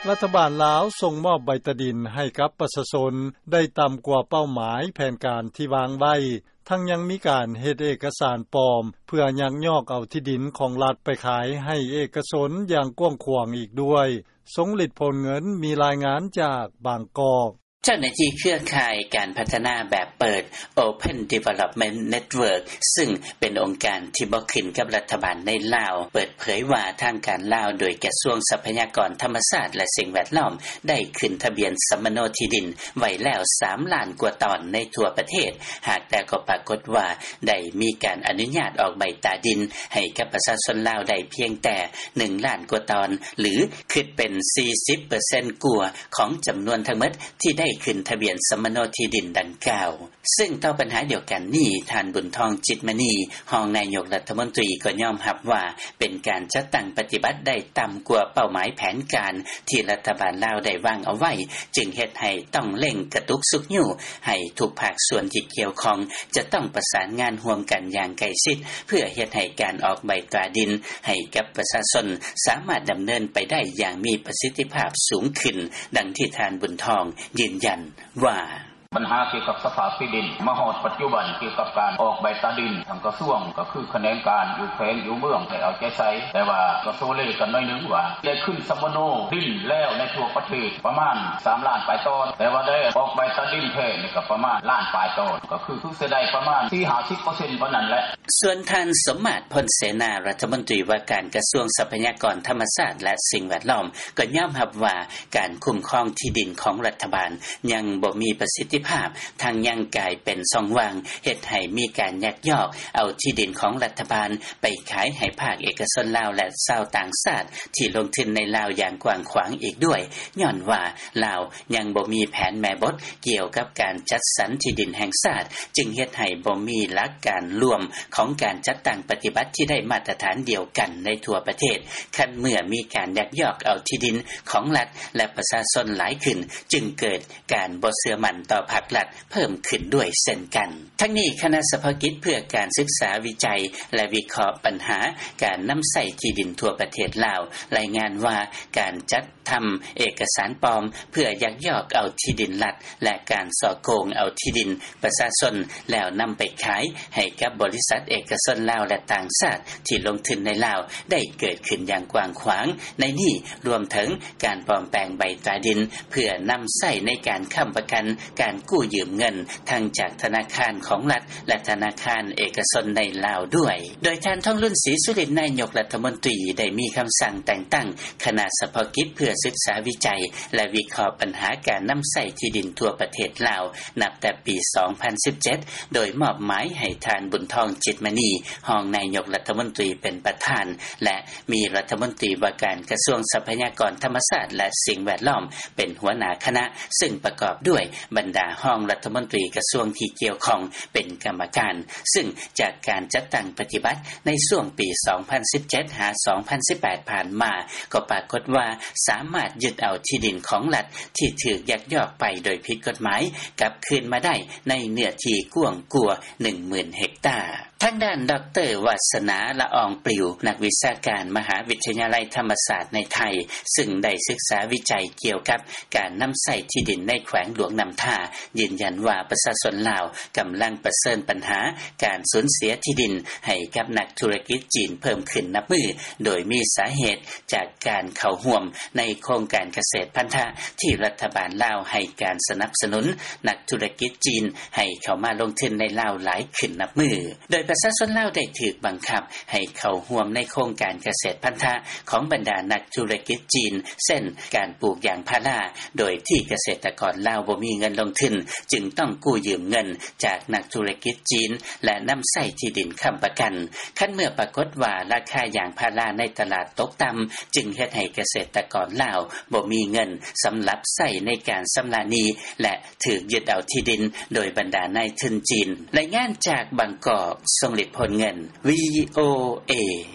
ລັດຖະບານລາວ ສົ່ງມອບໃບຕາດິນ ໃຫ້ກັບປະຊາຊົນ ໄດ້ຕໍ່າກວ່າເປົ້າໝາຍ ແຜນການທີ່ວາງໄວ້ ທັງຍັງມີການເຮັດເອກກະສານປອມ ເພື່ອຍັກຍອກເອົາທີ່ດິນ ຂອງລັດໄປຂາຍ ໃຫ້ເອກກະຊົນ ຢ່າງກວ້າງຂວາງອີກດ້ວຍ. ຊົງລິດ ໂພນເງິນ ມີລາຍງານຈາກບາງກອກ. ເຈົ້າໜ້າທີ່ເຄືອຂ່າຍການພັດທະນາແບບເປີດ Open Development Network ຊຶ່ງເປັນອົງການທີ່ບໍ່ຂຶ້ນກັບລັດຖະບານໃນລາວ ເປີດເຜີຍວ່າ ທາງການລາວ ໂດຍກະຊວງຊັບພະຍາກອນທຳມະຊາດ ແລະ ສິ່ງແວດລ້ອມ ໄດ້ຂຶ້ນທະບຽນສຳມະໂນທີ່ດິນໄວ້ແລ້ວ ສາມລ້ານກວ່າຕອນໃນທົ່ວປະເທດ. ຫາກແຕ່ກໍປາກົດວ່າ ໄດ້ມີການອະນຸຍາດອອກໃບຕາດິນ ໃຫ້ກັບປະຊາຊົນລາວໄດ້ພຽງແຕ່ ໜຶ່ງລ້ານກວ່າຕອນ ຫຼື ຄິດເປັນ ສີ່ສິບເປີເຊັນກວ່າ ຂອງຈຳນວນທັງໝົດ ທີ່ໄດ້ຂຶ້ນທະບຽນສຳມະໂນທີ່ດິນດັ່ງກ່າວ. ຊຶ່ງຕໍ່ບັນຫາດຽວກັນນີ້ ທ່ານ ບຸນທອງ ຈິດມະນີ ຮອງນາຍົກລັດຖະມົນຕີ ກໍຍອມຮັບວ່າ ເປັນການຈັດຕັ້ງປະຕິບັດໄດ້ຕ່ຳກວ່າເປົ້າໝາຍແຜນການ ທີ່ລັດຖະບານລາວໄດ້ວາງເອົາໄວ້ ຈຶ່ງເຮັດໃຫ້ຕ້ອງເລັ່ງກະຕຸກຊຸກຍູ້ ໃຫ້ທຸກພາກສ່ວນທີ່ກ່ຽວຂ້ອງ ຈະຕ້ອງປະສານງານຮ່ວມກັນຢ່າງໃກ້ຊິດ ເພື່ອເຮັດໃຫ້ການອອກໃບຕາດິນ ໃຫ້ກັບປະຊາຊົນ ສາມາດດຳເນີນໄປໄດ້ຢ່າງມີປະສິດທິພາບສູງຂຶ້ນ, ດັ່ງທີ່ທ່ານ ບຸນທອງ ຢືນຢັນວ່າ: ບັນຫາກ່ຽວກັບສະພາບທີ່ດິນ ມາຮອດປັດຈຸບັນ ກ່ຽວກັບການອອກໃບຕາດິນ ທາງກະຊວງ ກໍຄືຂະແໜງການຢູ່ແຂວງຢູ່ເມືອງ ໄດ້ເອົາໃຈໃສ່, ແຕ່ວ່າກໍໂຊເລກັນໜ້ອຍໜຶ່ງວ່າ ໄດ້ຂຶ້ນສຳມະໂນທີ່ດິນແລ້ວໃນທົ່ວປະເທດ ປະມານ ສາມລ້ານປາຍຕອນ, ແຕ່ວ່າໄດ້ອອກໃບຕາດິນແທ້ນີ້ ກໍປະມານລ້ານປາຍຕອນ, ກໍຄື ຄືຊິໄດ້ປະມານ ສີ່ສິບຫ້າສິບເປີເຊັນ ເທົ່ານັ້ນແຫຼະ. ສ່ວນທ່ານ ສົມມາດ ພົນເສນາ ລັດຖະມົນຕີວ່າການກະຊວງຊັບພະຍາກອນທຳມະຊາດ ແລະ ສິ່ງແວດລ້ອມ ກໍຍອມຮັບວ່າ ການຄຸ້ມຄອງທີ່ດິນຂອງລັດຖະບານ ຍັງບໍ່ມີປະສິດທິພາບ, ທັງຍັງກາຍເປັນຊ່ອງວ່າງ ເຮັດໃຫ້ມີການຍັກຍອກເອົາທີ່ດິນຂອງລັດຖະບານ ໄປຂາຍໃຫ້ພາກເອກະຊົນລາວ ແລະ ຊາວຕ່າງຊາດ ທີ່ລົງທຶນໃນລາວຢ່າງກວ້າງຂວາງອີກດ້ວຍ, ຍ້ອນວ່າລາວຍັງບໍ່ມີແຜນແມ່ບົດ ກ່ຽວກັບການຈັດສັນທີ່ດິນແຫ່ງຊາດ, ຈຶ່ງເຮັດໃຫ້ບໍ່ມີຫຼັກການລວມຂອງການຈັດຕັ້ງປະຕິບັດທີ່ໄດ້ມາດຕະຖານດຽວກັນໃນທົ່ວປະເທດ. ຄັນເມື່ອມີການຍັກຍອກເອົາທີ່ດິນຂອງລັດ ແລະ ປະຊາຊົນຫຼາຍຂຶ້ນ, ຈຶ່ງເກີດການບໍ່ເຊື່ອໝັ້ນຕໍ່ພາກລັດເພີ່ມຂຶ້ນດ້ວຍເຊັ່ນກັນ. ທັງນີ້, ຄະນະສະເພາະກິດເພື່ອການສຶກສາວິໄຈ ແລະ ວິເຄາະບັນຫາການນຳໃຊ້ທີ່ດິນທົ່ວປະເທດລາວ ລາຍງານວ່າ ການຈັດ ທຳເອກະສານປອມເພື່ອຍັກຍອກເອົາທີ່ດິນລັດ ແລະ ການສໍ້ໂກງເອົາທີ່ດິນປະຊາຊົນ ແລ້ວນຳໄປຂາຍໃຫ້ກັບບໍລິສັດເອກະຊົນລາວ ແລະ ຕ່າງຊາດທີ່ລົງທຶນໃນລາວ ໄດ້ເກີດຂຶ້ນຢ່າງກວ້າງຂວາງ. ໃນນີ້ລວມເຖິງການປອມແປງໃບຕາດິນ ເພື່ອນຳໃຊ້ໃນການຄ້ຳປະກັນການກູ້ຢືມເງິນ ທັງຈາກທະນາຄານຂອງລັດ ແລະ ທະນາຄານເອກະຊົນໃນລາວດ້ວຍ. ໂດຍທ່ານ ທອງລຸນ ສີສຸລິດ ນາຍົກລັດຖະມົນຕີ ໄດ້ມີຄຳສັ່ງແຕ່ງຕັ້ງ ຄະນະສະເພາະກິດເພື່ອສຶກສາວິໄຈ ແລະ ວິເຄາະບັນຫາການນຳໃຊ້ທີ່ດິນທົ່ວປະເທດລາວ ນັບແຕ່ປີສອງພັນສິບເຈັດ ໂດຍມອບໝາຍໃຫ້ທ່ານ ບຸນທອງ ຈິດມະນີ ຮອງນາຍົກລັດຖະມົນຕີເປັນປະທານ ແລະ ມີລັດຖະມົນຕີວ່າການກະຊວງຊັບພະຍາກອນທຳມະຊາດ ແລະ ສິ່ງແວດລ້ອມ ເປັນຫົວໜ້າຄະນະ, ຊຶ່ງປະກອບດ້ວຍບັນດາຮອງລັດຖະມົນຕີກະຊວງທີ່ກ່ຽວຂ້ອງເປັນກຳມະການ. ຊຶ່ງຈາກການຈັດຕັ້ງປະຕິບັດໃນຊ່ວງປີສອງພັນສິບເຈັດ ຫາ ສອງພັນສິບແປດ ຜ່ານມາ ກໍປາກົດວ່າສາມາດຍຶດເອົາທີ່ດິນຂອງລັດທີ່ຖືກຍັກຍອກໄປໂດຍຜິດກົດໝາຍກັບຄືນມາໄດ້ໃນເນື້ອທີ່ກວ້າງກວ່າ ໜຶ່ງໝື່ນເຮັກຕາ. ທາງດ້ານ ດອກເຕີ ວາສະໜາ ລະອອງປລິວ ນັກວິຊາການມະຫາວິທະຍາໄລທຳມະສາດໃນໄທ ຊຶ່ງໄດ້ສຶກສາວິໄຈກ່ຽວກັບການນຳໃຊ້ທີ່ດິນໃນແຂວງຫຼວງນ້ຳທາ ຢືນຢັນວ່າປະຊາຊົນລາວກຳລັງປະເຊີນບັນຫາການສູນເສຍທີ່ດິນໃຫ້ກັບນັກທຸລະກິດຈີນເພີ່ມຂຶ້ນນັບມື້, ໂດຍມີສາເຫດຈາກການເຂົ້າຮ່ວມໃນໂຄງການກະເສດພັນທະທີ່ລັດຖະບານລາວໃຫ້ການສະໜັບສະໜູນນັກທຸລະກິດຈີນໃຫ້ເຂົ້າມາລົງທຶນໃນລາວຫຼາຍຂຶ້ນນັບມື້. ໂດຍປະຊາຊົນລາວໄດ້ຖືກບັງຄັບໃຫ້ເຂົ້າຮ່ວມໃນໂຄງການກະເສດພັນທະຂອງບັນດານັກທຸລະກິດຈີນ ເຊັ່ນ ການປູກຢາງພາລາ, ໂດຍທີ່ກະເສດຕະກອນລາວບໍ່ມີເງິນລົງທຶນ, ຈຶ່ງຕ້ອງກູ້ຢືມເງິນຈາກນັກທຸລະກິດຈີນ ແລະ ນຳໃຊ້ທີ່ດິນຄ້ຳປະກັນ. ຄັນເມື່ອປາກົດວ່າລາຄາຢາງພາລາໃນຕະຫຼາດຕົກຕ່ຳ, ຈຶ່ງເຮັດໃຫ້ກະເສດຕະກອນລາວບໍ່ມີເງິນສຳລັບໃຊ້ໃນການຊຳລະໜີ້ ແລະ ຖືກຍຶດເອົາທີ່ດິນໂດຍບັນດານາຍທຶນຈີນ. ລາຍງານຈາກບາງກອກ, ຊົງລິດ ໂພນເງິນ, ວີໂອເອ.